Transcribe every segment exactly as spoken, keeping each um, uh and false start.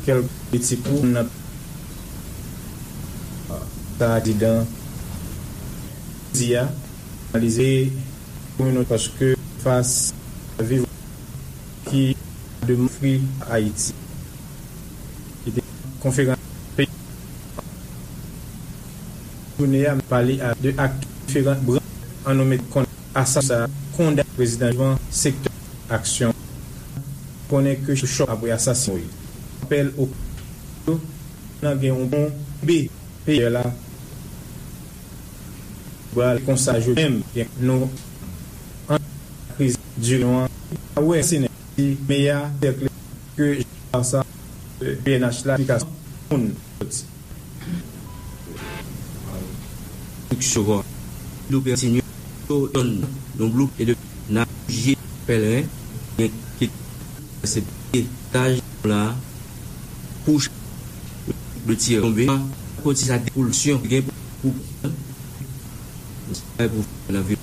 kèlke politik ou nan sa prezidan di a, analize kominote paske fas a viv ki de mofri Ayiti. Ki te konferans peyi jounen a pale a de ak diferan branch an nou met konn asasina kondan prezidan Jovan sektè aksyon konnen ke chòk apre asasin apèl o nan gen yon bon be peyè la pral konsa jodi menm gen nou an kriz dirijan an a wè se nèg ki meya sèkle ke sa P N H la ki ka moun soti. Konstriksyon kò. Lopè kontinye yo donn yon blok e de nan jije pèlren gen ki se etaj la kouch de tiyè tonbe konti sa depolisyon gen pou pou nan vil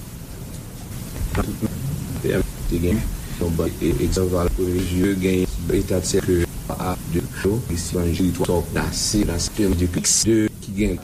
te gen yon ban egzanp a la premye jye gen eta de sèke a de yo isi ban jiri twa tòp nase nan sektè de ki gen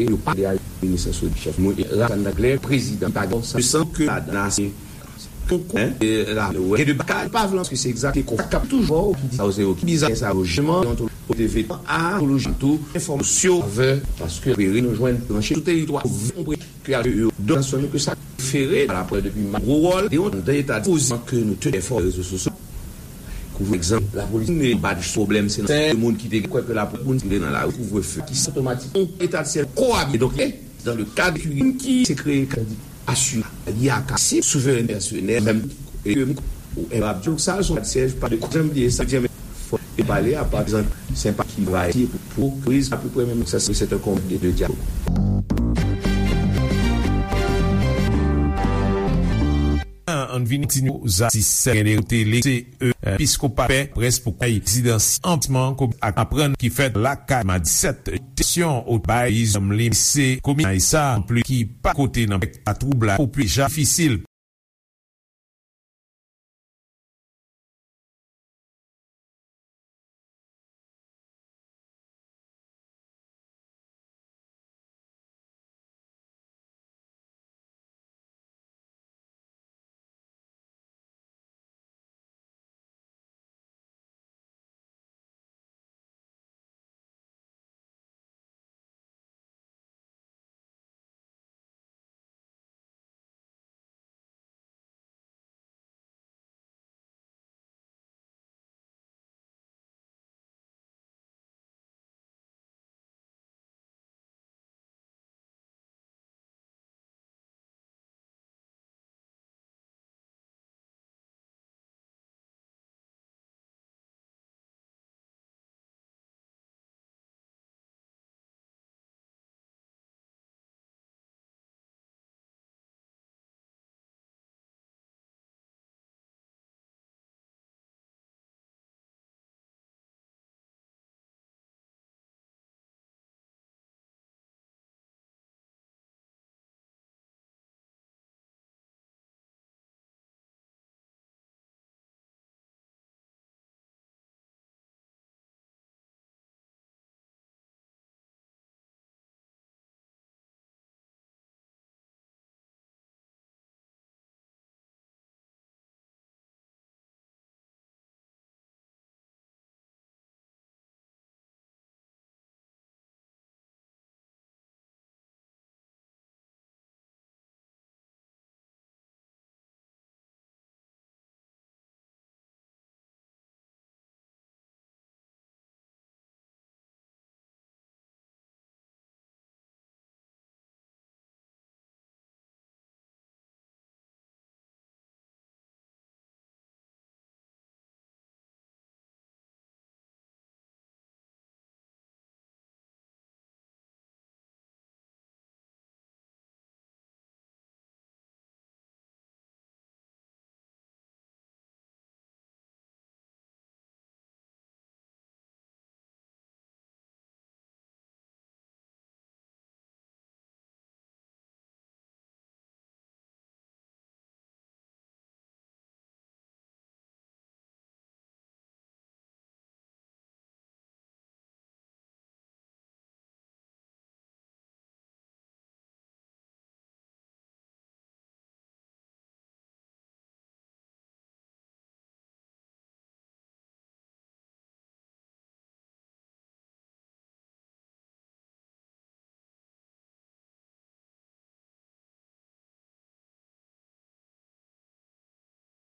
yo pa de a minis sou chèf. Mwen, Rakan Daglè, prezidan, pa gen sa, san ke ladan la, se konkou, hein, e la, e de bakal, pa vle, paske se egzakte konkou k ap toujou ki di sa, yo ki bizarre sa, yo, jisteman, deontoloji, kote vetan, a, deontoloji, tou, enfòmasyon, avè, paske, nou jwenn, branche, sou teritwa, konprann, ke al yo, donasyon nou ke sa fere, la prè depi ma gwo wòl, de yon, de eta pozisyon ke nou te fè rezo sosyo. Kouvre egzanp, lapolis ne bat pwoblèm, se nan sèl moun ki te kwè ke lapolis moun ki te nan lari kouvrefe, ki otomatik, yon eta de syèl koabi. Donk, e, dans le cadre ki, ki se kreye, asime, li a kasi, souverènte pèsonèl, menm, e, ou, e, ap di, sa, son syèj, pa de, janm bliye sa, di, men, fò, e pale, a, pa egzanp, senpati, va, e, pou, pou, kriz, apeprè menm, sa, se, se yon konbit de dyalòg. An vini ti nou zatis gen de kote lese e episkopa pè près pou kay rezidans anplisman komi ak aprann ki fèt lakay ma disèt sesyon ot bay izanm li se komi sa anplis ki pa kote nan pèk a twoub la pou pli ja difisil.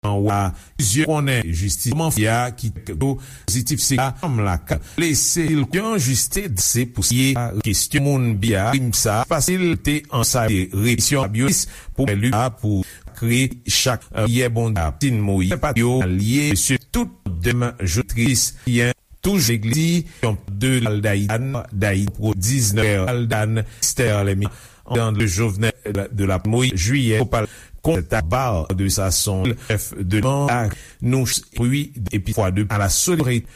Anwa, plizyè konnen jistis kòman fè a ki yo pozitif se la fanm la ka lese l yon jistis se pou siye kesyon moun bia krim sa fasil te ansaye repisyon abyonis pou li a pou kreye chak yè bon da tin moyi pa yo alye se tout dèm jotris yen Touj legliz yon de Aldaïdan, Daï pro diznèf Aldan, Esther Lemi, an de Jovenel de la Moïse, juillet, Copal, Conta Bar de Sasson, F de Man, nou, puis, et puis, fois de, à la solidarité.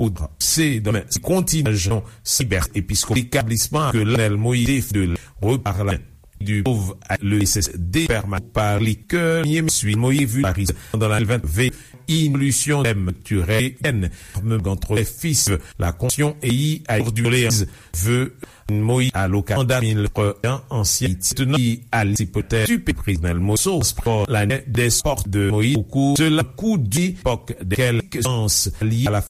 Oudra. Se domen se kontinyan jan siber episkop etablisman ke Lanel Moïse de reparla du pauvre le S S D permanent par les cœurs Moïse vu Paris pendant la vingt V involution même turelle N même entre les fils la conscience et à du Léon veut Moïse à l'occasion mille ancien Haïti tenant à l'Haïti peut-être du président Moïse sport l'année des sports de Moïse au cours de la coup d'époque de quelques ans liés à la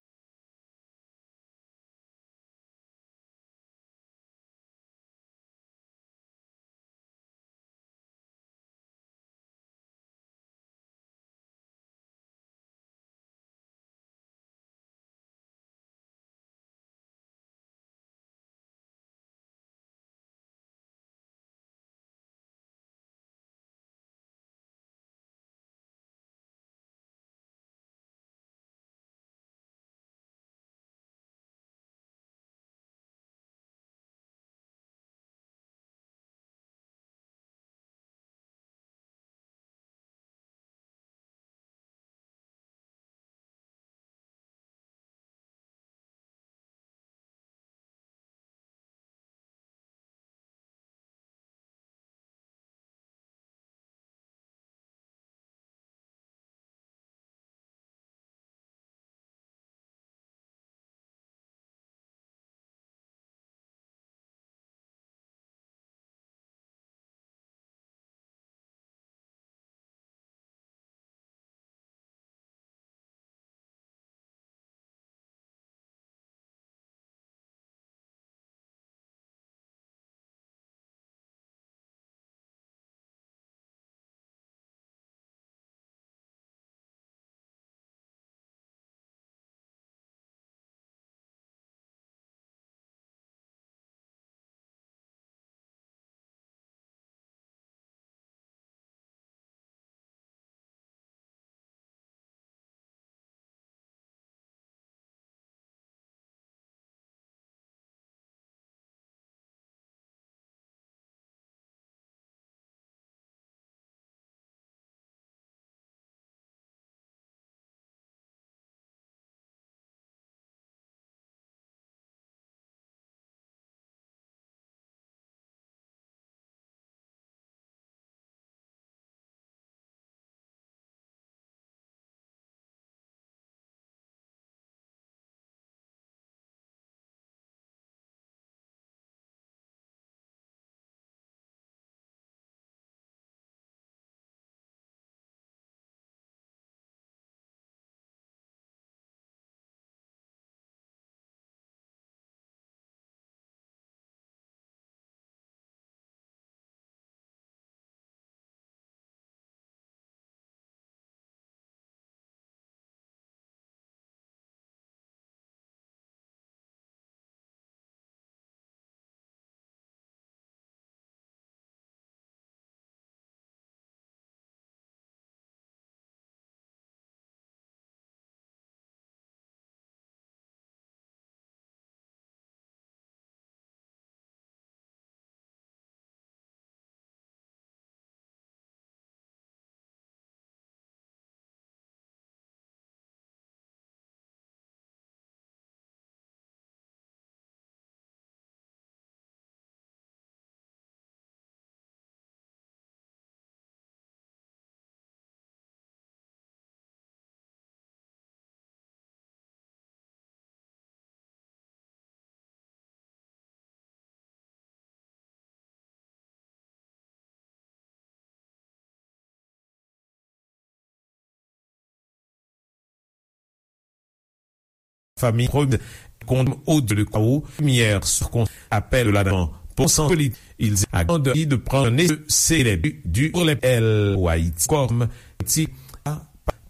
Famille Rose, Condom Audio, le Chaos, Lumière sur Con, Appel de la Nation, pour sensibilité, ils accordent de prendre un essai célèbre du L O L L O Haïti comme Haïti à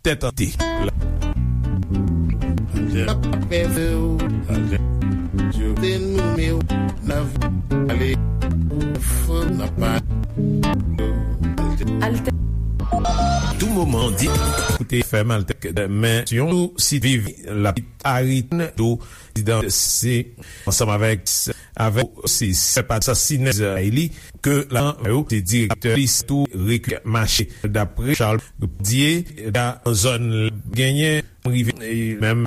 tête en tête. Alter. Tou moman di koute fèm Alter men yon sou sit viv la arit do prezidan se ansanm avèk avèk se se pa sasinèz li ke la yo te direktè lis tou rekil mache dapre Charles Dier da zòn genyen rive menm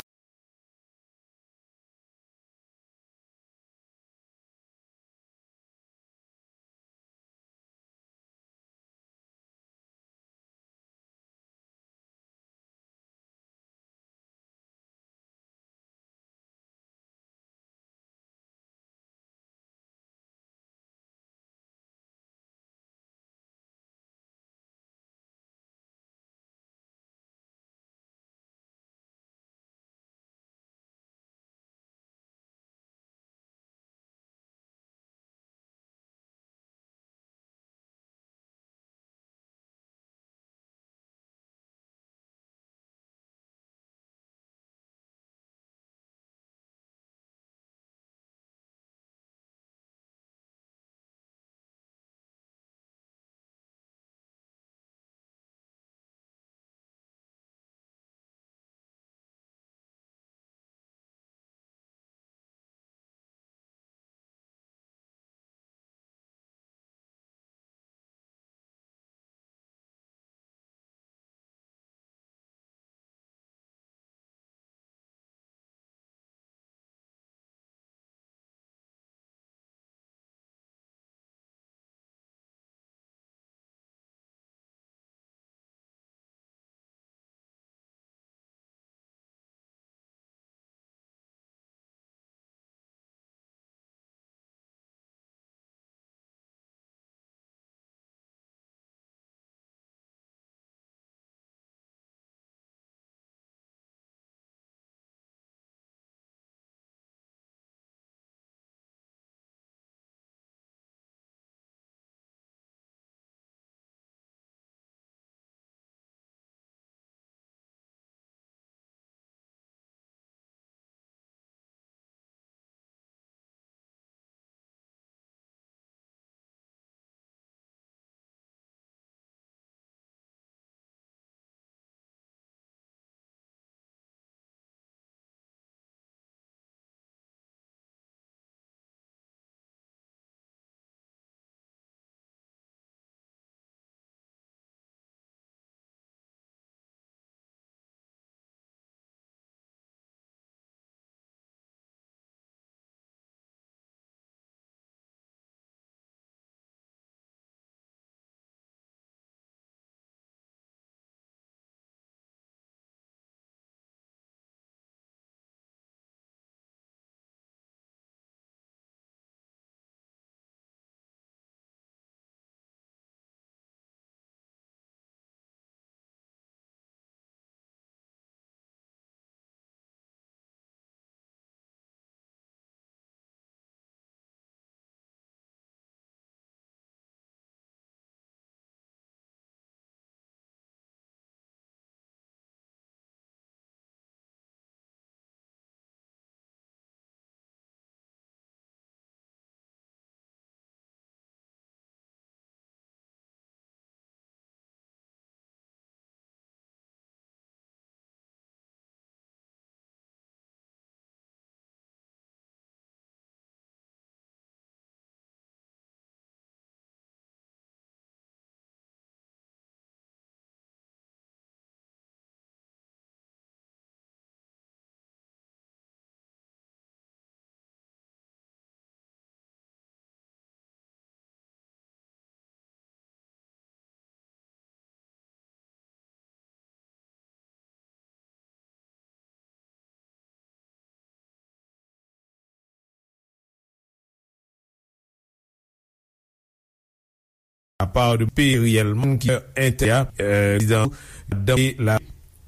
apa de pe reyèlman ki entè a, euh, prezidan dan la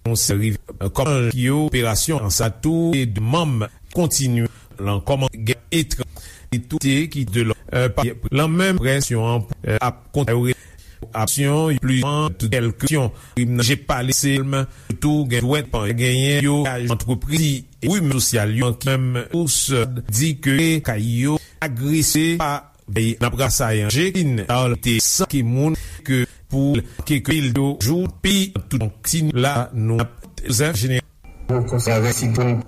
konsèri kòman ki yo operasyon an sa tou e de manm kontinye lan kòman gen etranjè ki de lò pa lan menm presyon an ap kontinye aksyon pli an tout kèlkesyon. Rimnan je pale selman tou gen dwèt pa genyen yo antrepriz e wi sosyal yo ki menm ous di ke kay yo agrese pa vey nan prasa anje kin al te san ki moun ke pou ke ke il do jou pi tout kontinye la nou ap zèf jeneral. Konsèy avèk si pou nou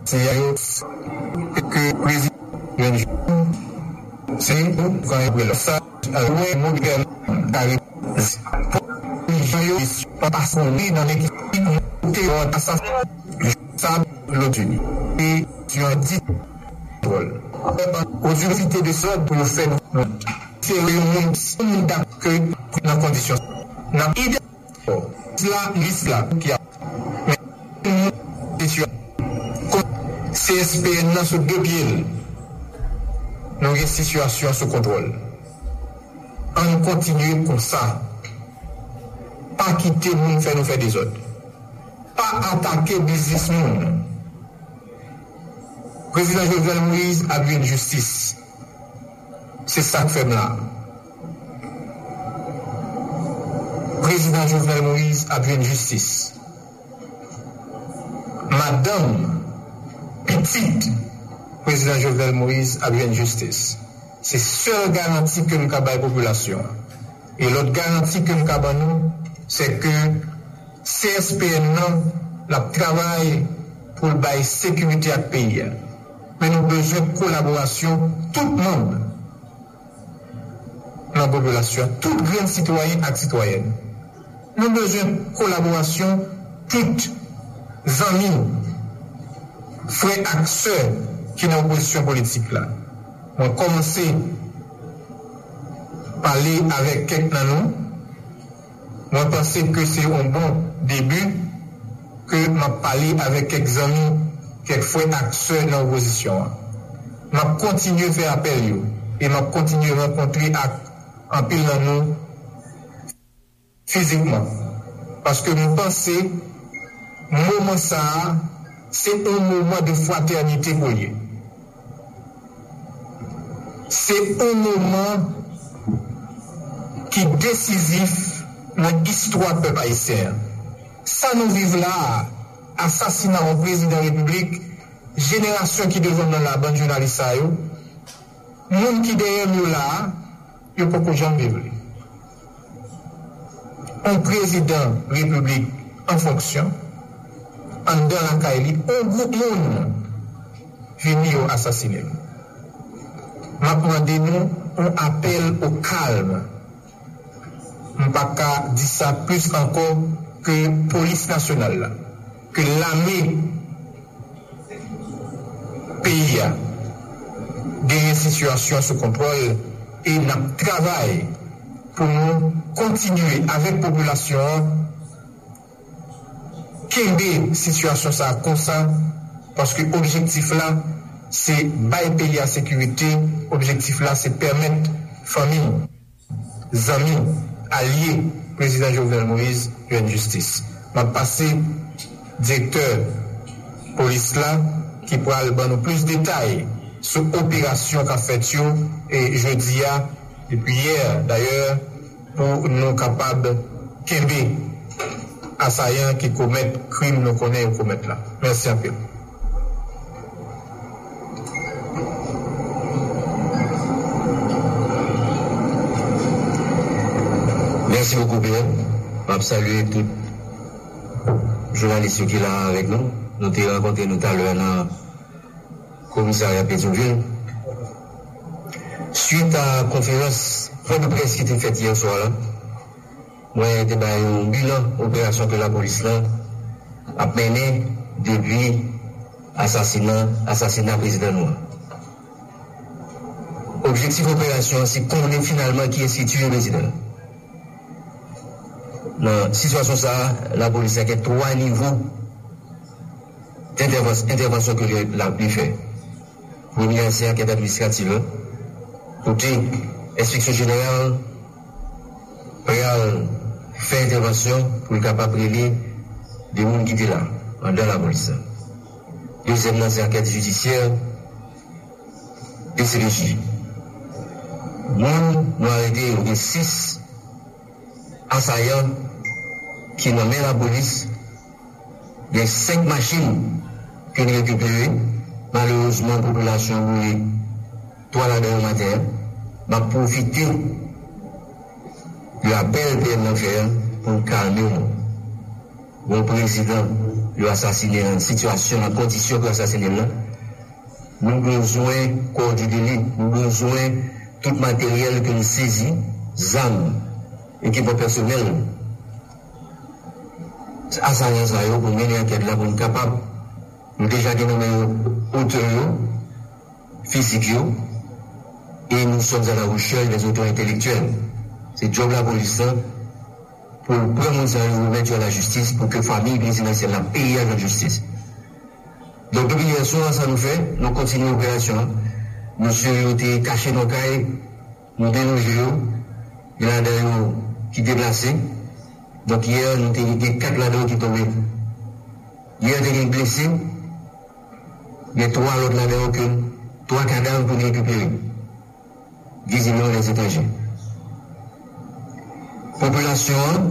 Se yo ke prezidan se yon kan yo la sa wè modèl kare jan yo pa sonde nan ekip te yon asas sa lòt jeni e yon di pòl otorite de sòd pou yo fè nou se yon moun se moun dap ke nan kondisyon n ap ide la, lis la ki ap. Men, sitiyasyon, C S P N nan sou de pye l. Nou gen sitiyasyon sou kontwòl. Ann kontinye konsa. Pa kite moun fè nou fè dezòd. Pa atake biznis moun. Prezidan Jovenel Moïse ap jwenn jistis. Se sa k fè m la. Prezidan Jovenel Moïse ap jwenn jistis. Madanm, pitit Prezidan Jovenel Moïse ap jwenn jistis. Se sèl garanti ke m ka bay popilasyon an. E lòt garanti ke m ka ban nou, se ke C S P N nan, l ap travay pou l bay sekirite ak peyi a. Men nou bezwen kolaborasyon tout manm nan popilasyon, tout grenn sitwayen ak sitwayèn. Nou bezwen kolaborasyon tout zanmi, frè ak sè ki nan opozisyon politik la. Mwen kòmanse pale avèk kèk nan nou. Mwen panse ke se yon bon debi ke m ap pale avèk kèk zanmi, kèk frè ak sè nan opozisyon an. M ap kontinye fè apèl yo e m ap kontinye rankontre ak anpil nan nou fizikman. Paske m panse moman sa a, se yon moman de fratènite pou l ye. Se yon moman ki desizif nan istwa pèp ayisyen an. Sa nou viv la a, asasina yon prezidan repiblik, jenerasyon ki devan m nan la, bann jounalis sa yo, moun ki dèyè m yo la a, yo poko janm viv li. Yon prezidan repiblik an fonksyon, anndan lakay li, yon gwoup moun vini yo asasine l. M ap mande nou yon apèl o kalm. M pa ka di sa plis ankò ke polis nasyonal la, ke lame peyi a genyen sitiyasyon sou kontwòl e n ap travay pou nou kontinye avèk popilasyon an kenbe sitiyasyon sa a konsa, paske objektif la, se bay peyi a sekirite, objektif la, se pèmèt fanmi, zanmi, alye Prezidan Jovenel Moïse jwenn jistis. M ap pase direktè polis la ki pral ban nou plis detay sou operasyon k ap fèt yo, e, jodi a, depi yè, dayè, pou nou kapab kenbe asayan ki komèt krim nou konnen yo komèt la. Mèsi anpil. Mèsi bokou, Pierre. M ap salye tout jounalis yo ki la avèk nou. Nou te rankontre nou talè nan komisarya Petyonvil. Swit a konferans pwen de près ki te fèt yè swa la, mwen te bay yon bilan operasyon ke lapolis lan ap mennen depi asasina, asasina prezidan nou an. Objektif operasyon an se konnen finalman kiyès ki tiye prezidan an. Nan sitiyasyon sa a, lapolis la gen twa nivo entèvans-, entèvansyon ke li, la, li fè. Premye a se ankèt administratif la, kote enspeksyon jeneral pral fè entèvansyon pou l kapab rele de moun ki te la anndan lapolis la. Dezyèm nan se ankèt jidisyè, D C P J. Moun nou arete yo, gen sis asayan ki nan men lapolis, gen senk machin ke n rekipere. Malerezman, popilasyon an boule twa ladan yo maten an. M ap pwofite de apèl P M nan fè an pou n kalme nou. Yon prezidan yo asasine nan sitiyasyon, nan kondisyon ke yo asasine l lan, nou bezwen kò di de li, nou bezwen tout materyèl ke nou sezi, zam, ekipman pèsonèl asayan sa yo pou mennen ankèt la pou n kapab, nou deja gen nan men yo otè yo, fizik yo, et nous sommes à la recherche des auteurs intellectuels. Se djòb lapolis lan pou l pran moun sa yo, remèt yo a lajistis, pou ke fanmi prezidansyèl la, peyi a jwenn jistis. Donk, depi yè swa, sa nou fè, nou kontinye operasyon an. Mesye yo te kache nan kay, nou deloje yo, gen ladan yo ki deplase. Donk, yè, nou te gen kat ladan yo ki tonbe. Yè, te gen blese, gen twa lòt ladan yo ke twa kadav pou n rekipere. Vizibleman, lèzetranje. Popilasyon an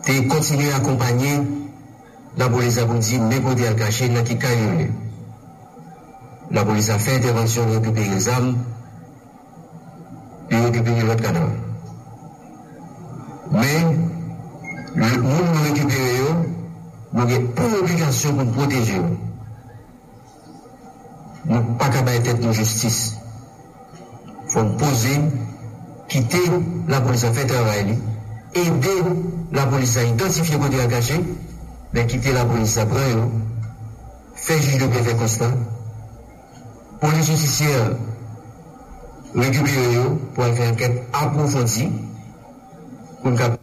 te kontinye akonpanye lapolis la pou di men kote y al kache, nan ki kay yo ye. Lapolis la fè entèvansyon, rekipere zam, li rekipere lòt kadav. Men, moun nou rekipere yo, nou gen pou obligasyon pou n pwoteje yo. Nou pa ka bay tèt nou jistis. Fò n poze, kite lapolis la fè travay li, ede lapolis la idantifye kote y al kache, men kite lapolis la pran yo, fè jij de pè fè konsta, polis jidisyè rekipere yo pou al fè ankèt apwofondi pou n kapab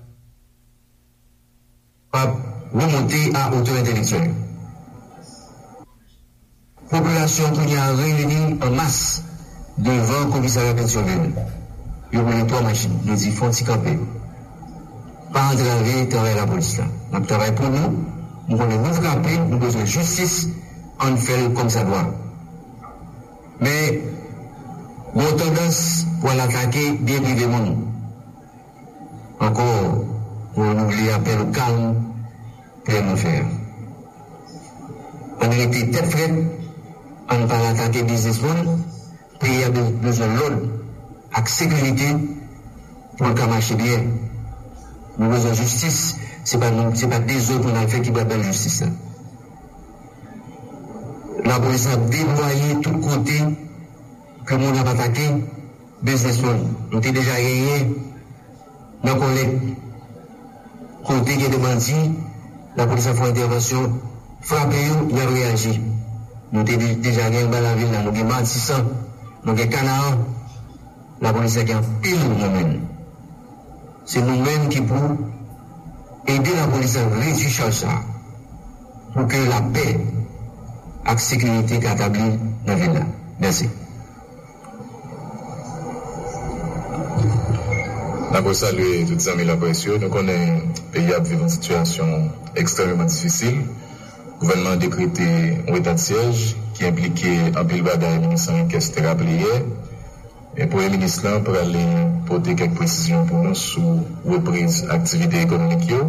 remonte a otè entèlektyèl yo. Popilasyon kounye a reyini an mas devan komisarya Petyonvil. Yo boule twa machin. Yo di fò n ti kanpe. Pa antrave travay lapolis la. N ap travay pou nou. Nou konnen nou frape, nou bezwen jistis, ann fè l kòmsadwa. Men, gen yon tandans pou al atake byen prive moun. Ankò, mwen renouvle apèl ou kalm pou n fè a. Ann rete tèt frèt, ann pa al atake biznisman, peyi a be- bezwen lòd ak sekirite pou l ka mache byen. Nou bezwen jistis, se pa nou, se pa dezòd pou n al fè ki pral bay jistis la. Lapolis ap deplwaye tout kote ke moun ap atake biznisman. Nou te deja genyen nan Kòlèt, kote gen de bandi, lapolis ap fè entèvansyon, frape yo, y ap reyaji. Nou te de- deja gen anba lavil la, nou gen Matisan, nou gen Kanaan. Lapolis la gen anpil nan men l. Se nou menm ki pou ede lapolis la redui chaj sa a, pou ke lapè ak sekirite ka tabli nan vil la. Mèsi. N ap resalye tout zanmi laprès yo. Nou konnen peyi a ap viv yon sitiyasyon ekstrèmeman difisil. Gouvènman an dekrete yon eta de syèj ki enplike anpil bagay, minis Henriquez te raple yè. E Premye Minis lan prale pote kèk presizyon pou nou sou repriz aktivite ekonomik yo.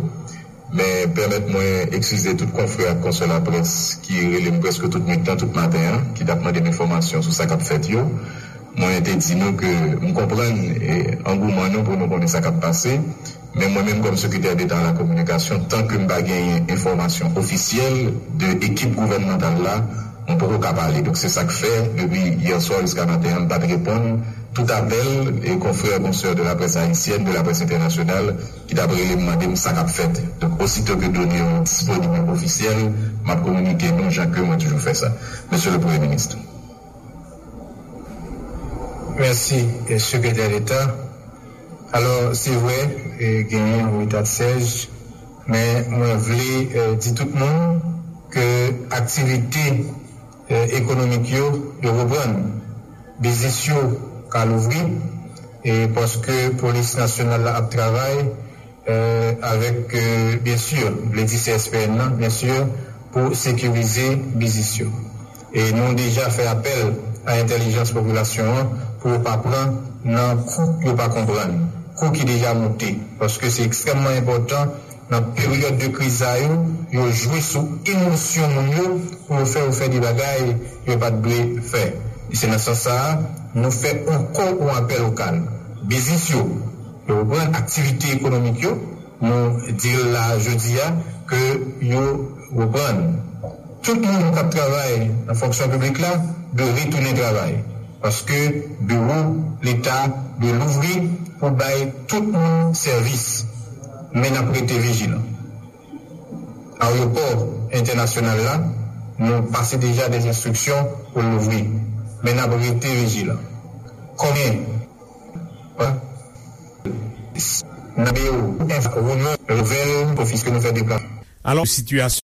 Men pèmèt mwen eskize tout konfrè ak konsè laprès ki rele m prèske tout nwit lan, tout maten an, ki t ap mande m enfòmasyon sou sa k ap fèt yo. Mwen te di nou ke m konprann, e, angouman nou pou nou konnen sa k ap pase. Men mwen menm kòm sekretè deta a la kominikasyon, tan ke m pa genyen enfòmasyon ofisyèl de ekip gouvènmantal la, mwen poko ka pale. Donk se sa k fè, depi yè swa jiska maten an, m pa t reponn tout apèl e konfrè, konsè de la presse haïtienne, de la presse internationale, ki t ap rele m mande m sa k ap fèt. Donk osito ke done yo disponib e ofisyèl, m ap kominike nou jan ke mwen toujou fè sa. Mesye le Premye Minis. Mèsi, eh, Sekretè Deta. Alò, se vre, eh, genyen yon eta de syèj, men mwen vle, eh, di tout moun ke aktivite, eh, ekonomik yo, yo reprann. Biznis yo ka louvri, e paske Polis Nasyonal la ap travay, euh, avèk, euh, byen si, m vle di C S P N nan, byen si, pou sekirize biznis yo. E nou deja fè apèl a entèlijans popilasyon an pou yo pa pran nan kou yo pa konprann, kou ki deja moute, paske se ekstrèmman enpòtan nan peryòd de kriz sa yo, yo jwe sou emosyon moun yo pou yo fè yo fè de bagay yo pa t dwe fè. E se nan sans sa a, nou fè ankò yon apèl lokal. Biznis yo, yo reprann aktivite ekonomik yo, nou di l la jodi a ke yo reprann. Tout moun k ap travay nan fonksyon piblik la dwe retounen travay, paske biwo Leta dwe louvri pou bay tout moun sèvis. Men n ap rete vijilan. Ayewopò entènasyonal la, nou pase deja de enstriksyon pou l louvri. Men n ap rete vijilan. Konbyen Nan biwo, enfo, reyinyon, nouvèl, ofis ke nou fè deplasman. Alò, sitiyasyon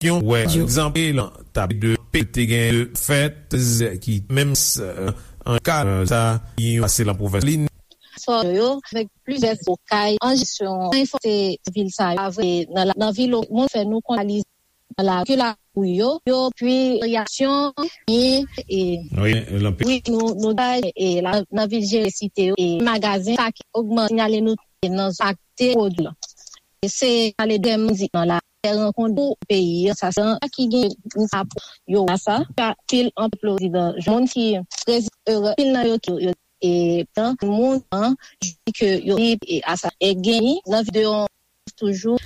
Yon wè egzanp lan tab de pe te gen de fèt ki menm an ka sa yon pase lan pwovens li. kò yo, avèk plizyè lokay an jesyon, ranfòse vil sa yo, avè nan la, nan vil moun fè nou konalize nan la, ke la pou yo, yo, pi reyaksyon, e, e, wi, wi, nou, nou bay, e, la, nan vil jere site yo, e, magazen, sa ki ogmante, sinyale nou, e, nan zòn akte pwodui la. E se ale dèm di nan la, fè rankont pou peyi, sa, sa, ki gen, sa, pou yo, sa, sa, pil an plozi dan, moun ki, prezi-, e, pil nan yo ki, yo, e, tan, moun, an, di ke yo, e, a sa, e, gen, nan videyo, toujou.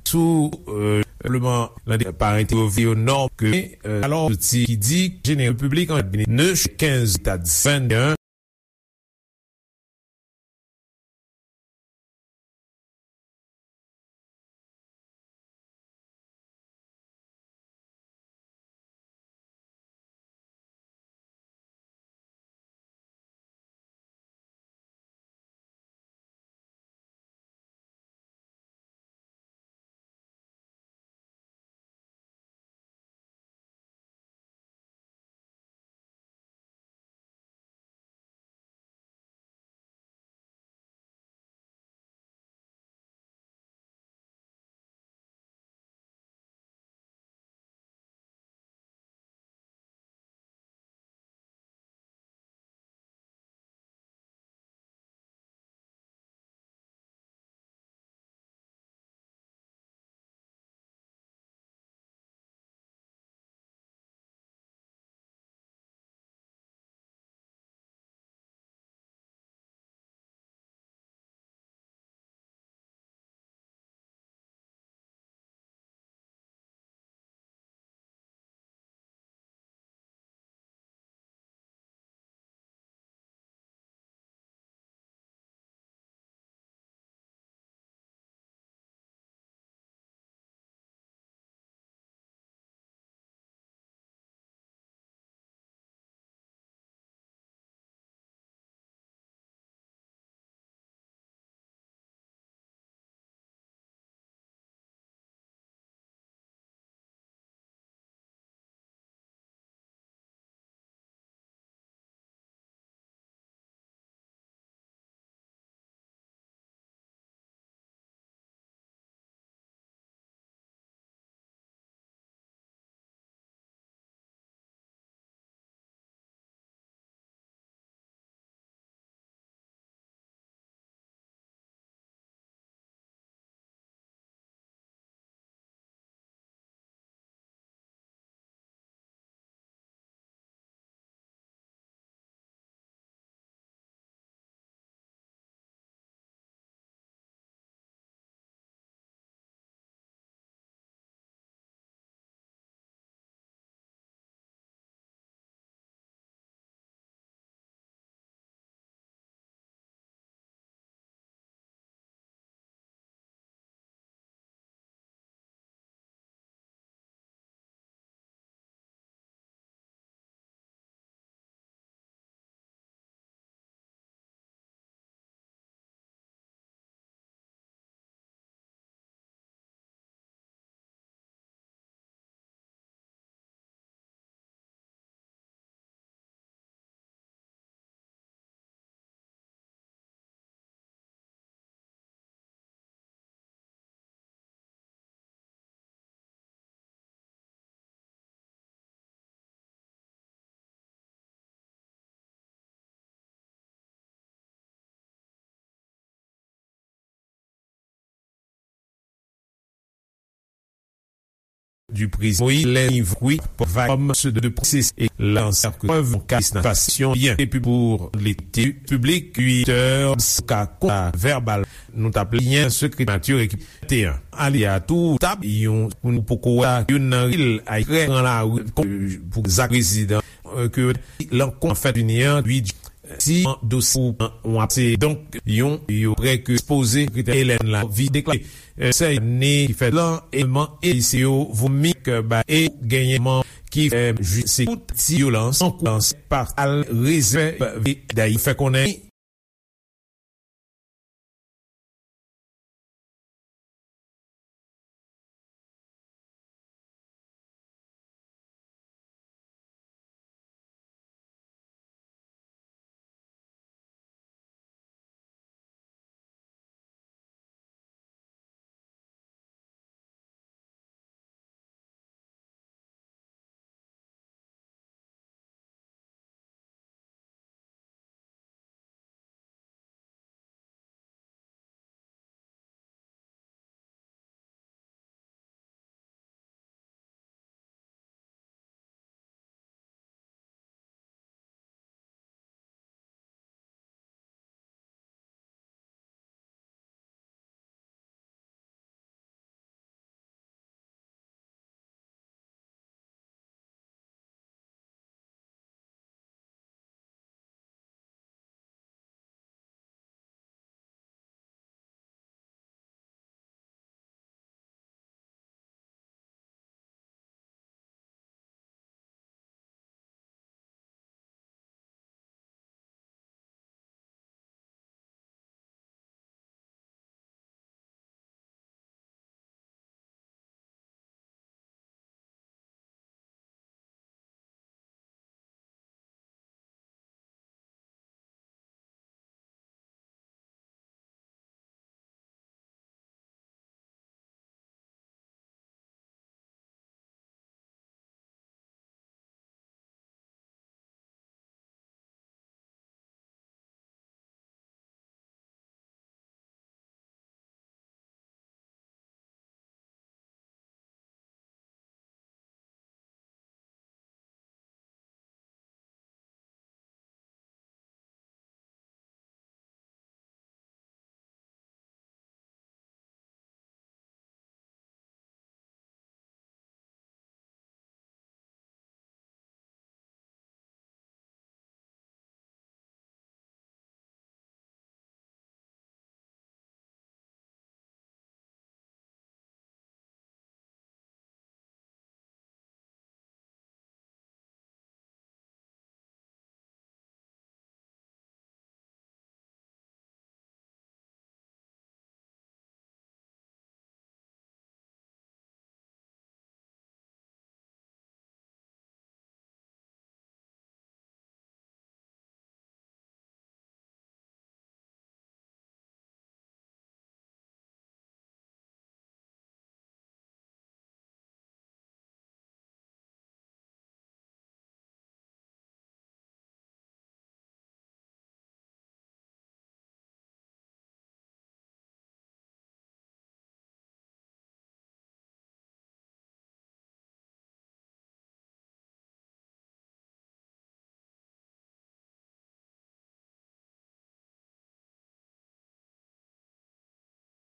Sou, euh, simplement, la parent yo nò ke, euh, alors, ti ki di, général public en cabinet, ne, quinze, stade vingt et un, Du président Moïse, les niveaux, oui, va comme ceux de processus et lanceur que preuve en cas de passation bien et puis pour les publics huit heures ka konta verbal nou t ap li an sekrè nature ki te an ali a tou tab yon pou nou poko wè youn nan ril ay krè an la pou zak prezidan ke lankont an fèt vini an huit si an dosye ou an apse donk yon yo prè ke ekspoze sekretè Hélène la vi deklare sè ane ki fèt lan eleman e se yo vomi ke ba e genyen man ki fè jis se tout ti vyolans an koulans pa al rezève dayi fè konnen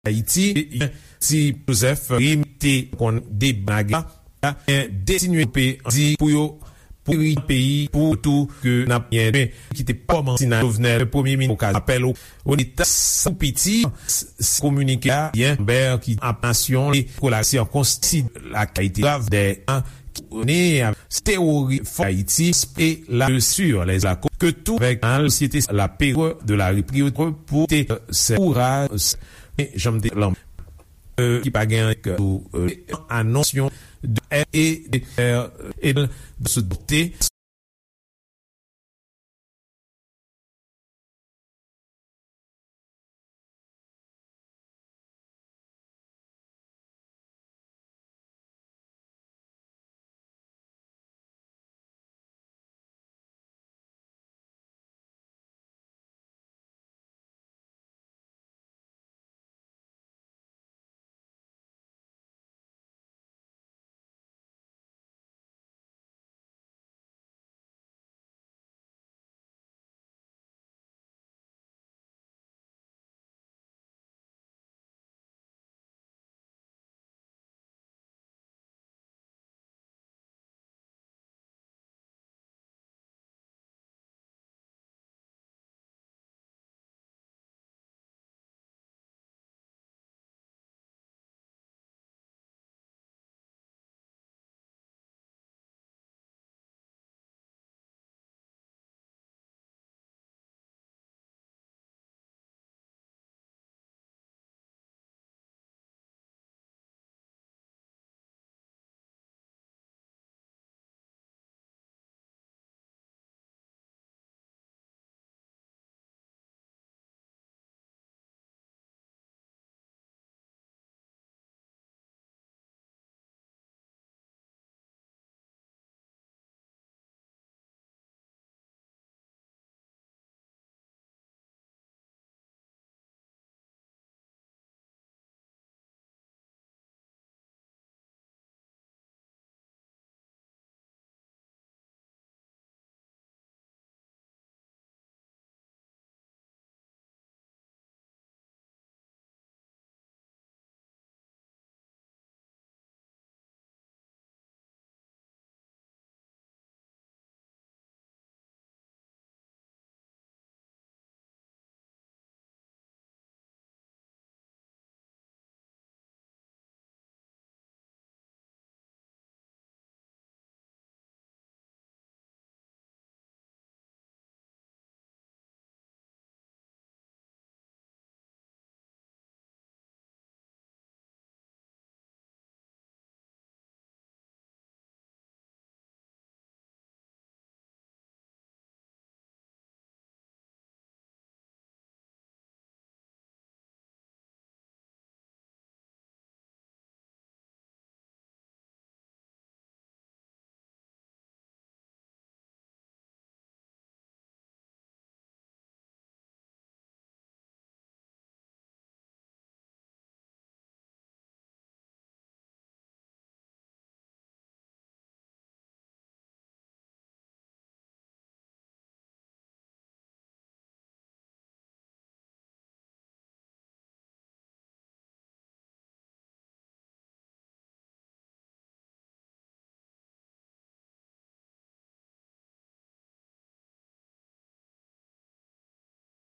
Ayiti, ti Joseph Rim te konn deblage la, gen de ti nwi pe di pou yo pou ri peyi pou tou ke n ap gen demen ki te kòmanse nan Jovenel, premye minis okazyon apèl o leta sa pou piti. Kominike a, Yanbè ki ap nasyon li kolasyon konsti lakayite grav de an ki ne tewori fò Ayiti e la sur les la ke tou avèk an sosyete la période de la reprise pou te se kouraj janm te lan ki pa gen anonsyon de e de e de se dote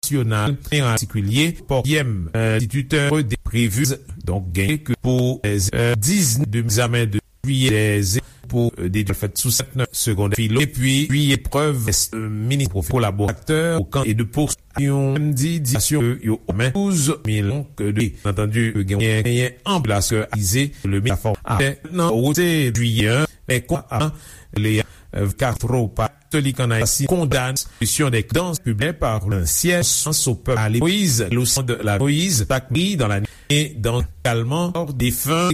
nasyonal, an patikilye, Pòkyèm, enstititè de previz, donk, genyen ke pou diznèf de egzamen de jiyè de pou de fèt sou sèt segondè filo, epi jiyè prèv minis kolaboratè o kan e de pou yon menm di di asyon yo men douz milyon de antandi genyen anpil aske aze le mi la fòm a nan wote jiyè men kwa a le Castro pa Katolik an Ayiti kondann solisyon de dans publik par le siège sans au peuple à Moïse, leçon de la Moïse, takri dans la nuit et dans également défunt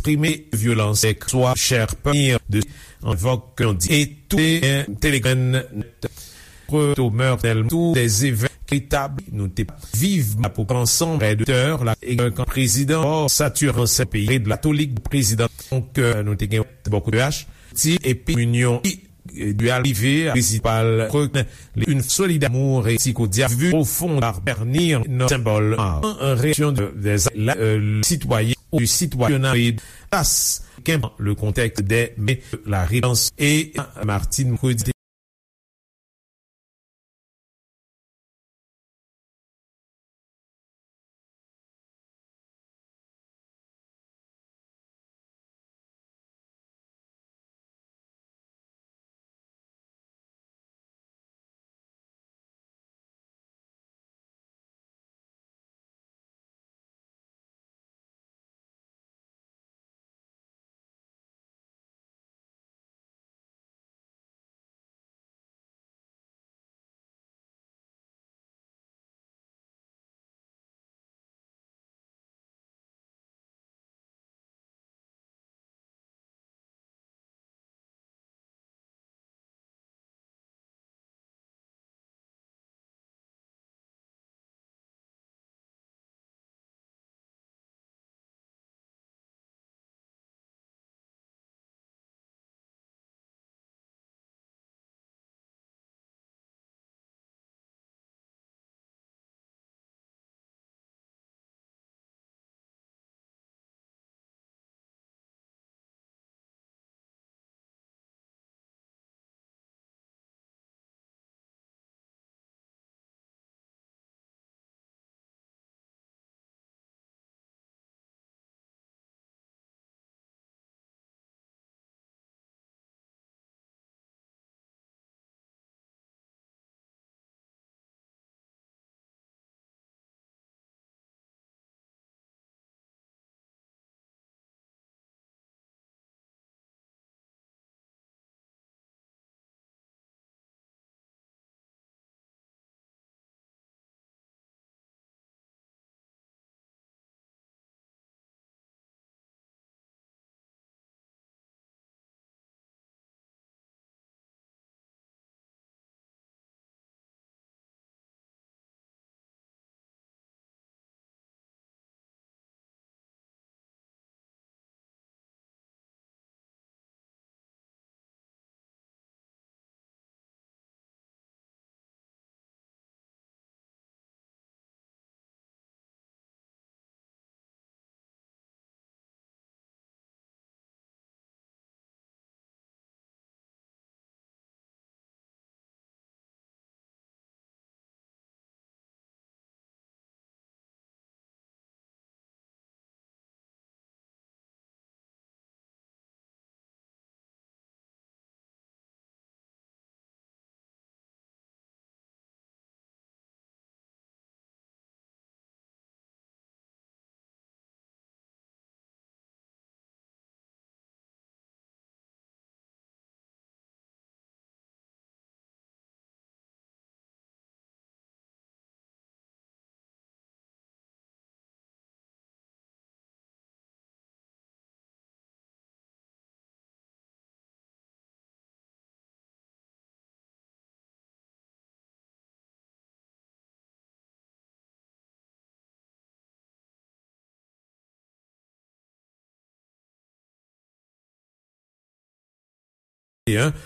eksprime vyolans swa chè pènir de anvòk ke yon di e tou te gen Telegram nèt. Preto Mèrnèl tou dè evènman ki tabli nou te viv la pou ansanm prè de tè la e kan prezidan ò satiran se peyi de latolik prezidan donk nou te gen bòkou de H ti epi minyon du al rive a prensipal rekonèt li une solidarité amour et psychodiavu profond par bernir nan sembòl an reaksyon de des la sitwayen ou sitwayen tas kenban le contexte des mais la réponse et Martine Cody.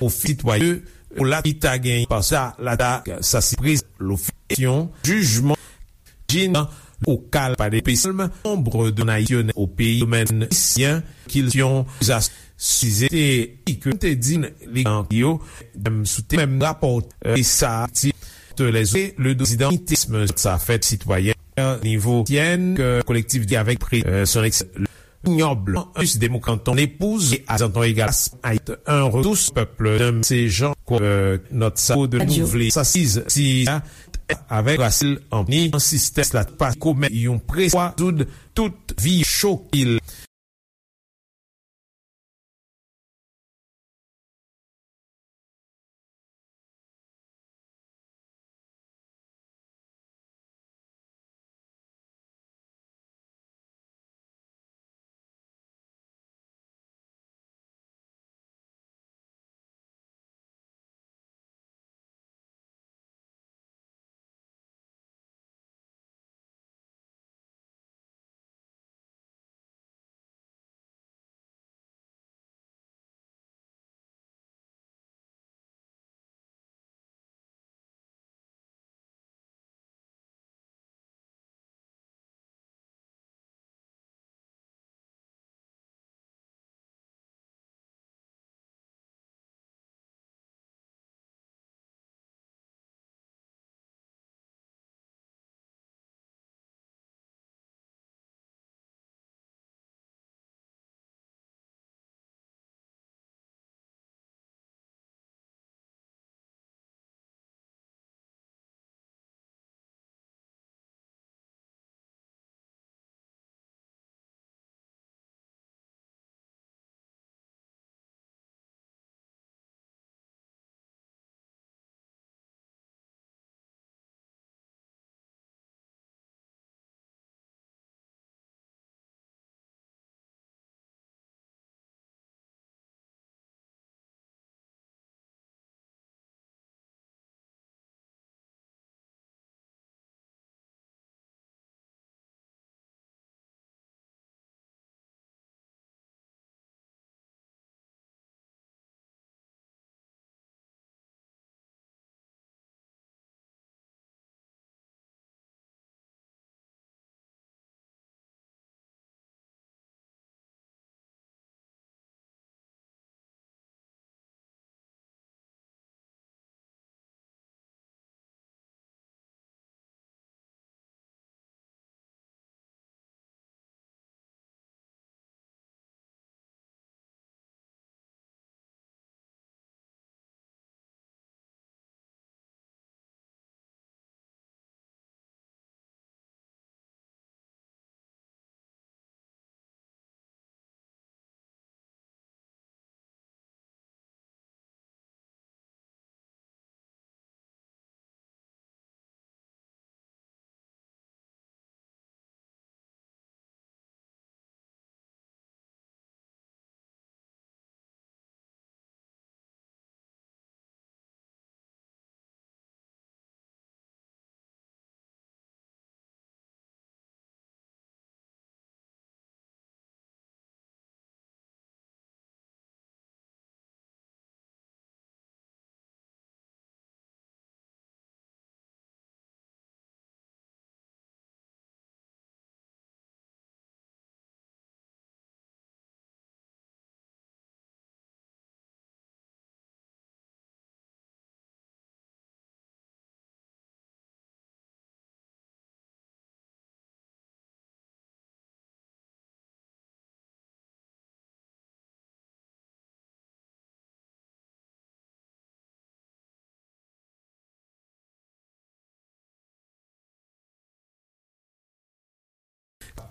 Ofi sitwayen pou la ki ta gen pa sa la ta sa sipriz lofisyon jijman jina ou kal pa de pesalm nombre de nasyonal au pays domaine sien kilsyon zas sizete i ke te di li an yo dem soute menm rapò e sa ti te lèze le dozidan itisme sa fèt sitwayen nivo syen ke kolektivite avèk pri son ex Nyob us de mou kanton lepouz e azanton egal ayit un retous pèp de se jan kwa nòt sa de nou vle sa siz si avèk rasil an ni an sistès la pa komè yon preswa zoud tout vi chokil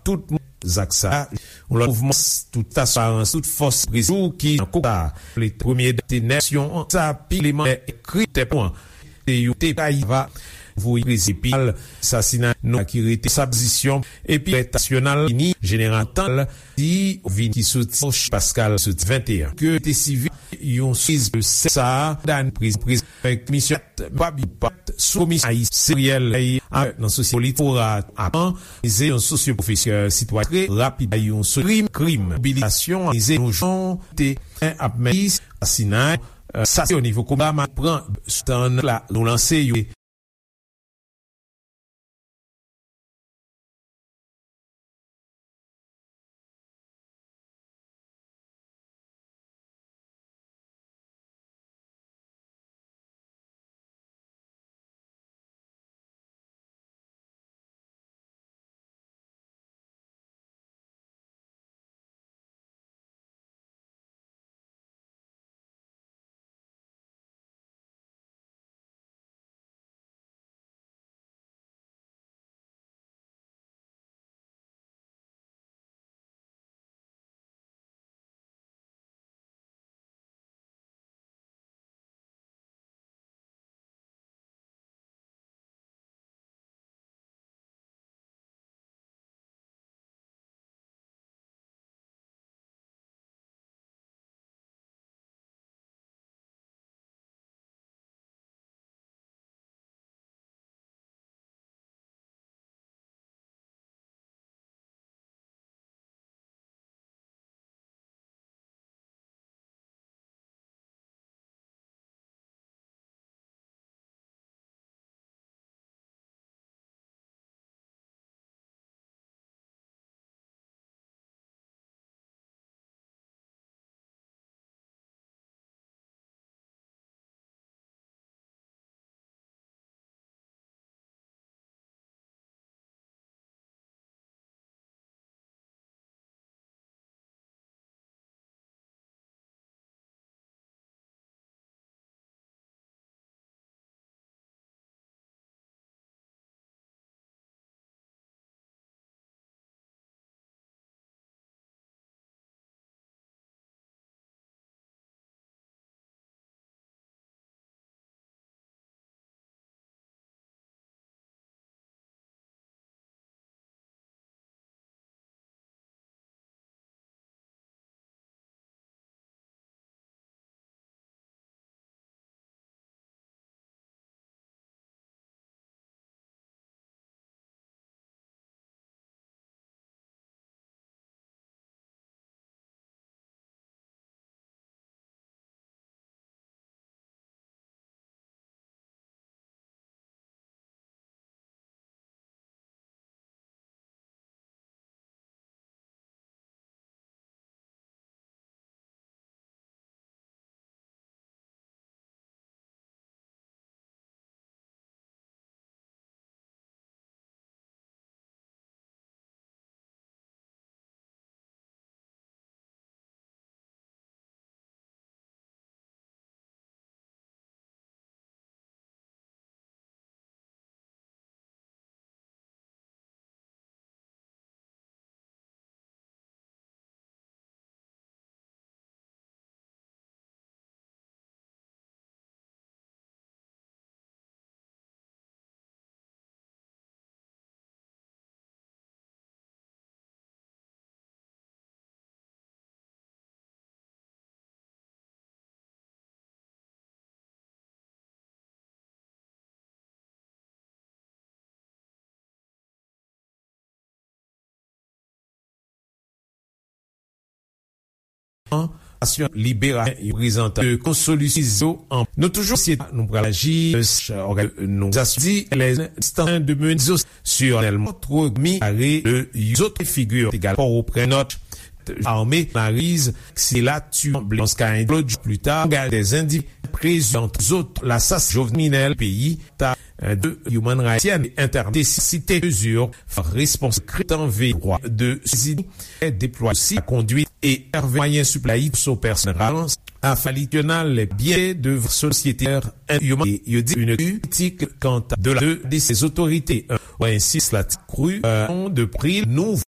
tout moun. Zak sa a, yon lòt mouvman tout asirans, tout fòs prezou ki nan kou sa. Le premye date nasyon an, sa pi leman ekri tèt an. Te yo te kay va voye prezipal sasina nou ki rete sa pozisyon epi retasyonal ini jeneral tan di vin ki soti Pascal soti venteyen ke te sivi yon siz de sa dan priz priz komisyon pa bi pat sou komisyon ayisyen nan sosyete politik fora apan ze yon sosyo pwofesè sitwa tre rapid yon sou krim krim mobilizasyon ze yon jan te ap men asinay sa se o nivo koba ma pran sou tan la nou lanse yo. Asyon libera yo prezantan de konsolisyon an nou toujou sye nou pral aji nou zasdi lè distan de men zo sirnèlman tro mi are de zot figi egal pa ou pran nòt ame mariz se la tu blanche ka en lòt jou pli ta gade des individus prezant zot la sas jovenel peyi ta de human rights entèrdesisite mezur respons kretan ve dwa de sezi deplwa si la kondwit e ève mwayen siplay so pèsonal afalityonal byen de sosyete human yo di une kritik kanta de la de ses autorités ou ensis la kru de pri nou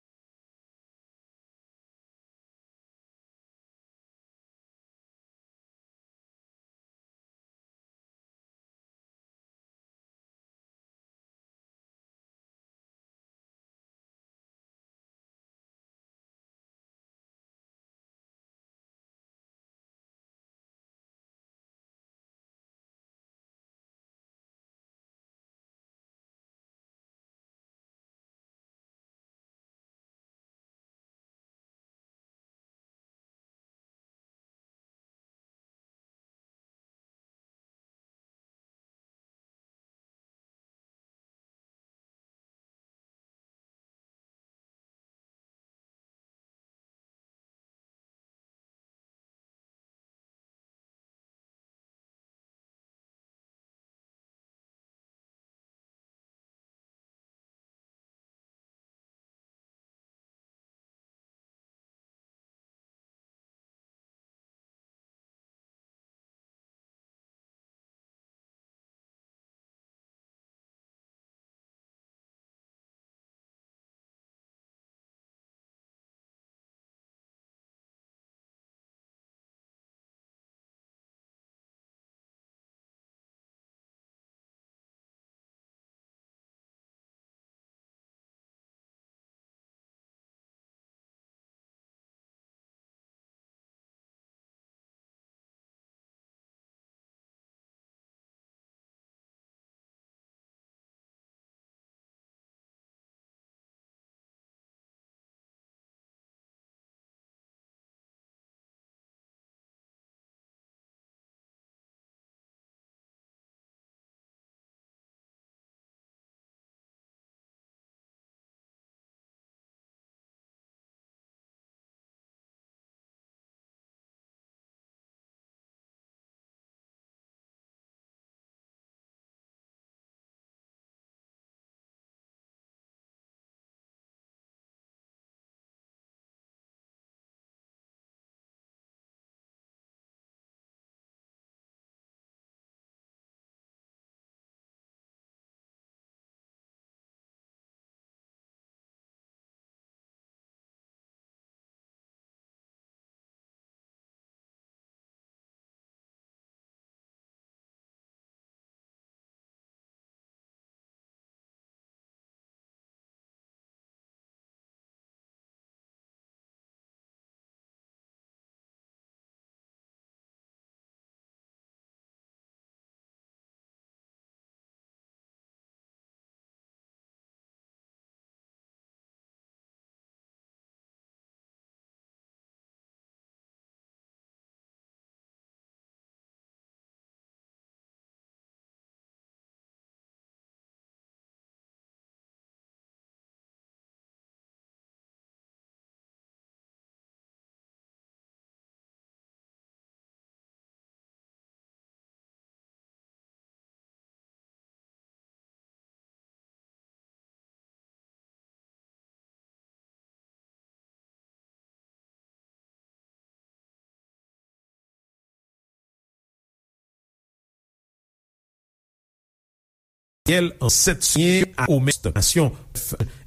Yèl an sèt souliyen a omès nasyon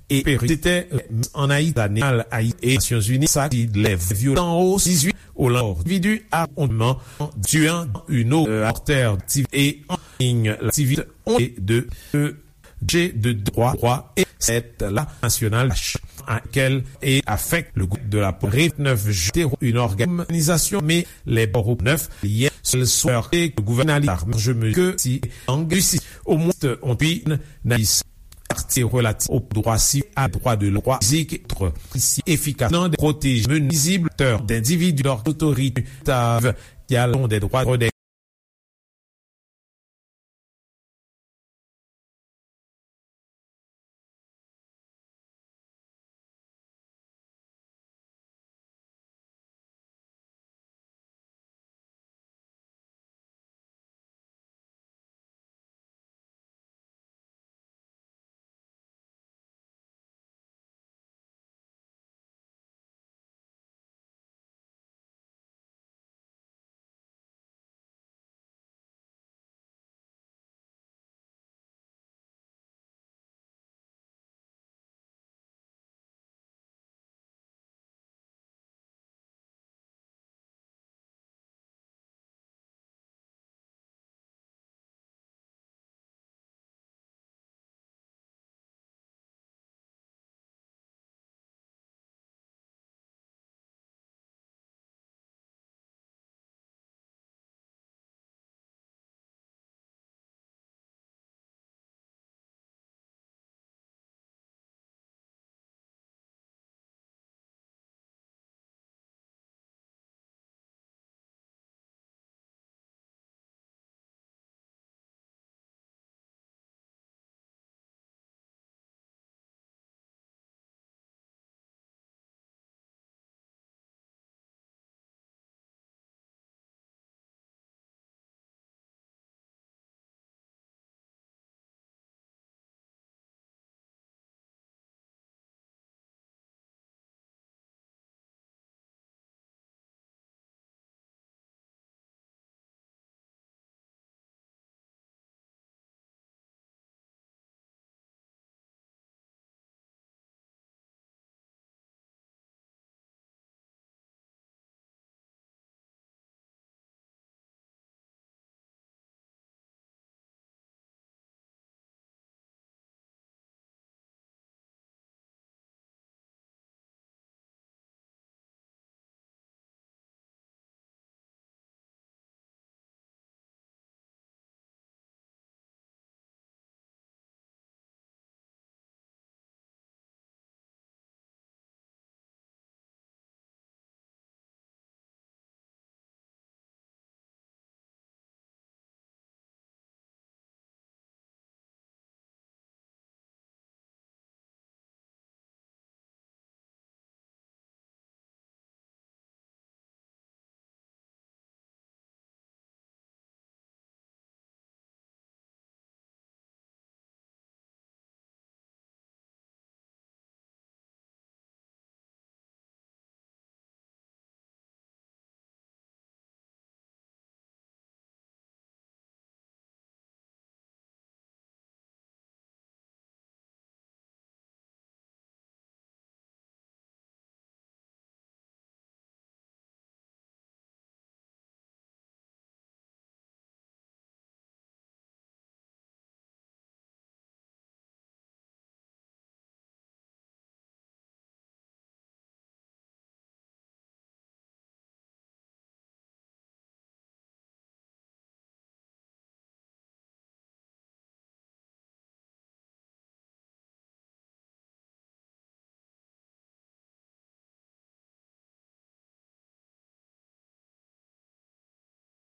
e peritè an Ayiti, Nasyonzini, sa ki lèv vyolan o dizuit o lan endividi a onman tuan une eau mortère e en ligne l'activité on et deux G de trois trois et sept la nasyonal akèl e afèk le groupe de la Réunion neuf juin une organisation mais les bords neuf liens sel souhaité que le gouvernement large mesure que si anglisi au moins on puis nalis parti relatif au droit civil à droit de loi physique être ici efficace non de protéger menisible terre d'individus d'autorité tave qui allons des droits des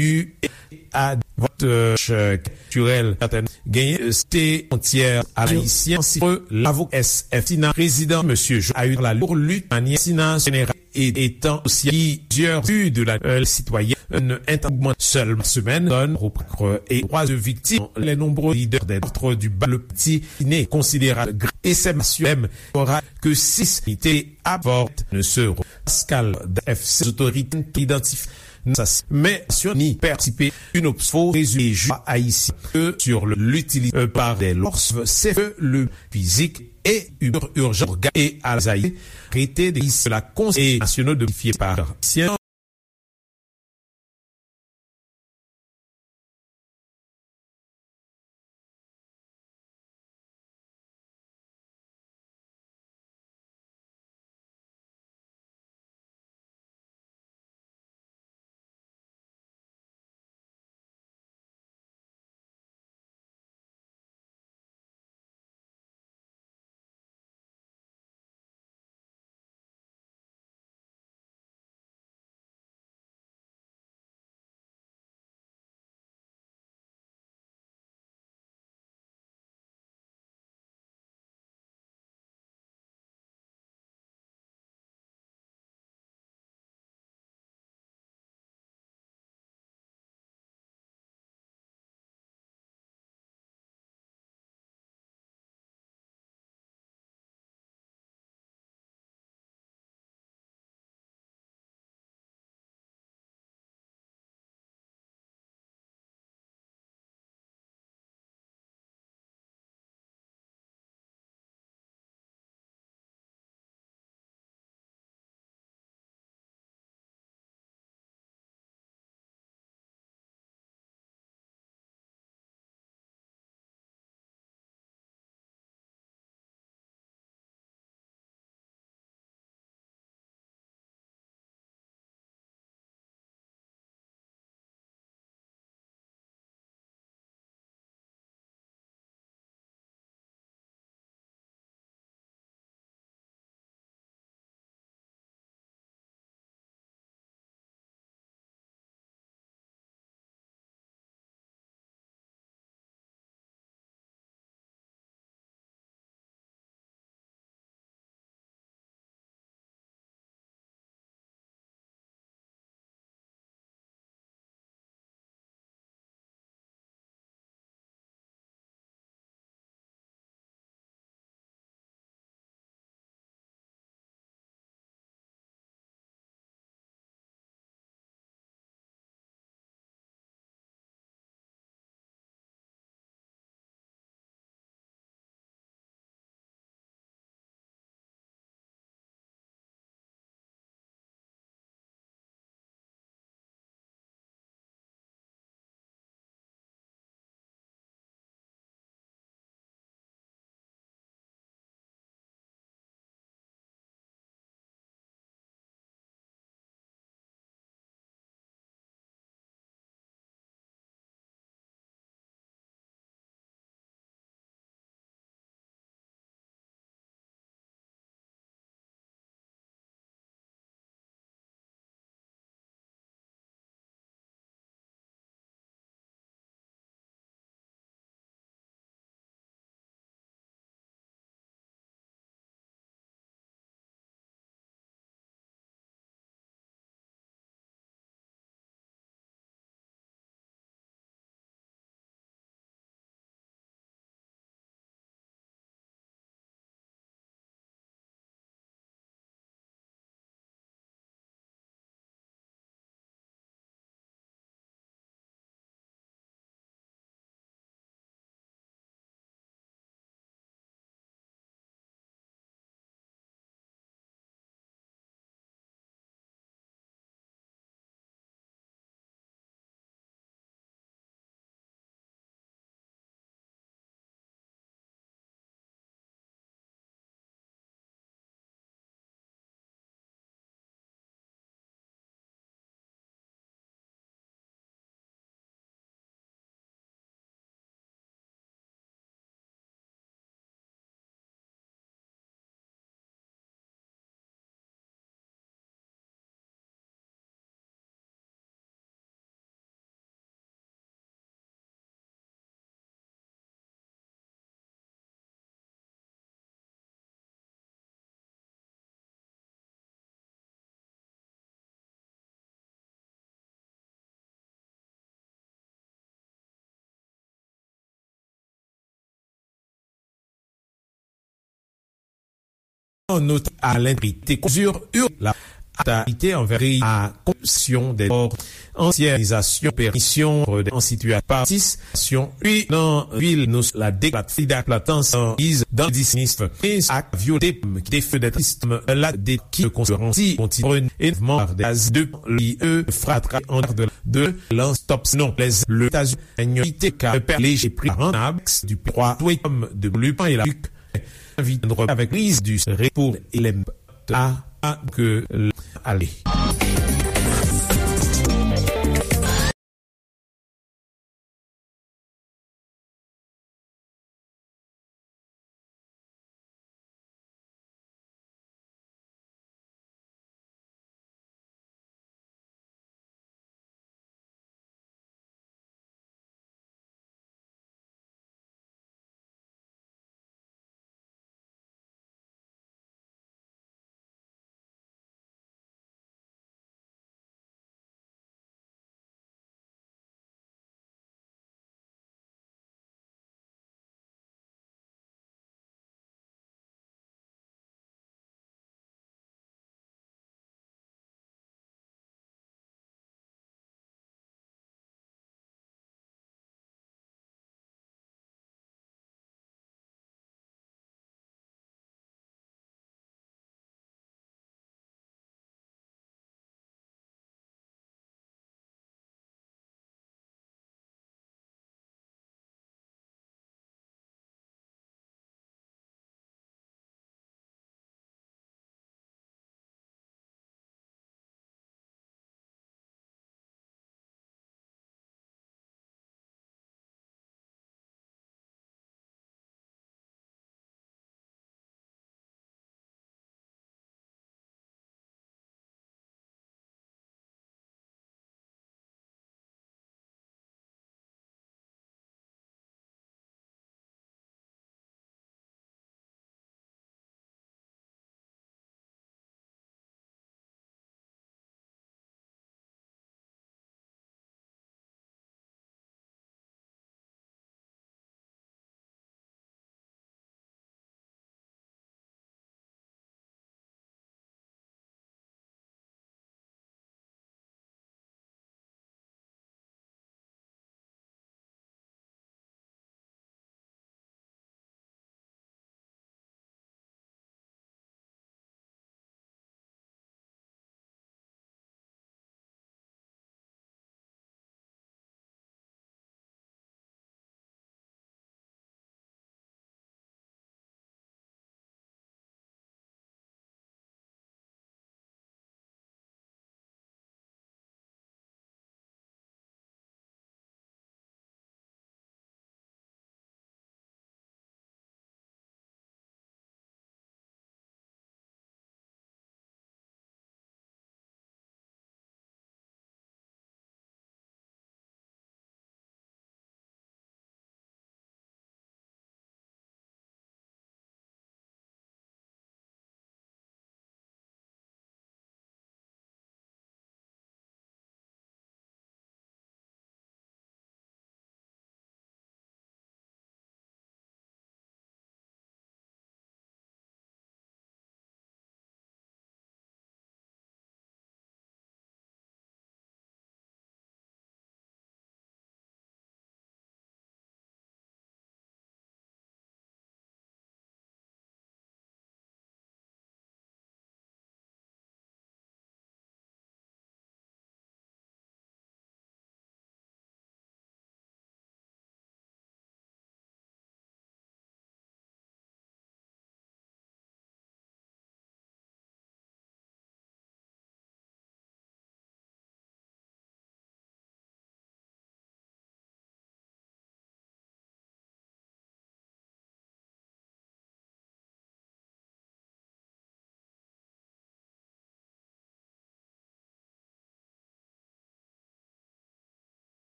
U A vòt kiltirèl genyen se fwontyè ayisyen si lavoka S F Tina prezidan mesye Joe Ayou la lour lit manyè Tina jeneral e etan osi plizyè vi de la sitwayen entangman sèl semèn donn reprakre e dwa de viktim les nombreux leaders des autres du bal le petit iné considérable e sè masyonm ora ke sis ite aport ne se Pascal F C otorite identif nan sa, men Nasyonzini patisipe. Une obsfo résultat ayisyen que sur l'utilisation par des lors, c'est que le physique et urgent et à les arrêté de la Conseil national de fier par ancien Notè a lentegrite konzir la atalite anvè a konpsyon de kò ansyenizasyon perisyon de an sitiyasyon partisipasyon ui nan vil nou la deklat fida platans an iz dan dis minis ak vyote ki te fè de tristem la de ki konsideransi kontinyen envman de az de li e fratra an de de lan stop non les le taz enyo ite ka pe leje pri ranab du trois twetom de lupan e la vit avèk riz du repo elem a a ke ale.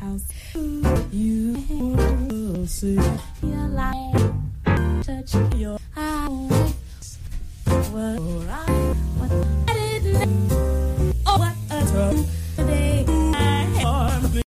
House. You will see your light touch your eyes. What I, what I didn't know. Oh, what a time today. I am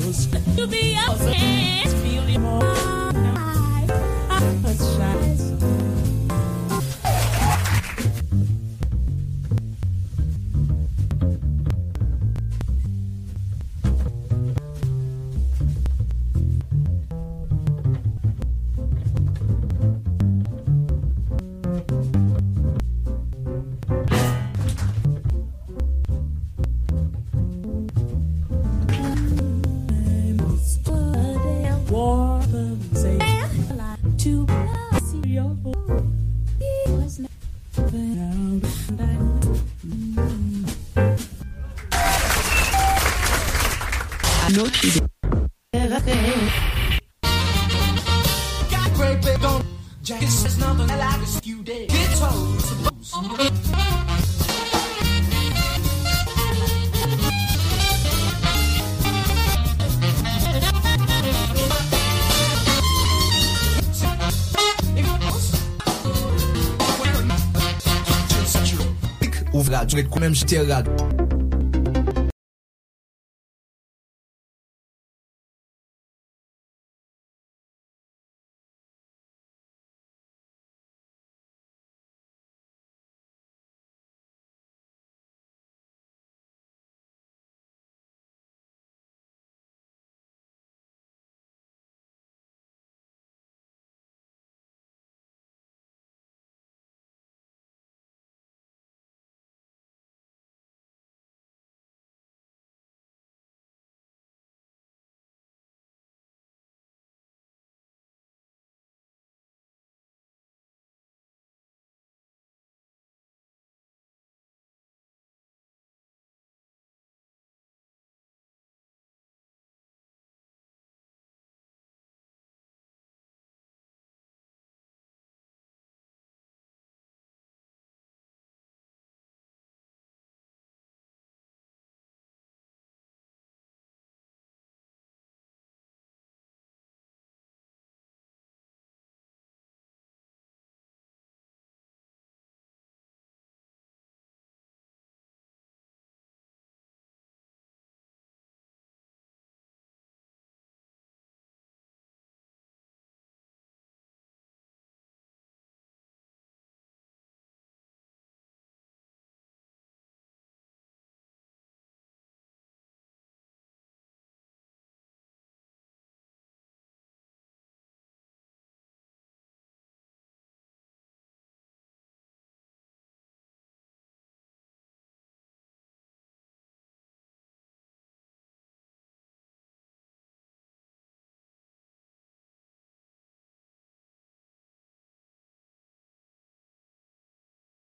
To be a friend, feel it more. I, I apologize. Ouvè radyo, ret kou menm jete radyo.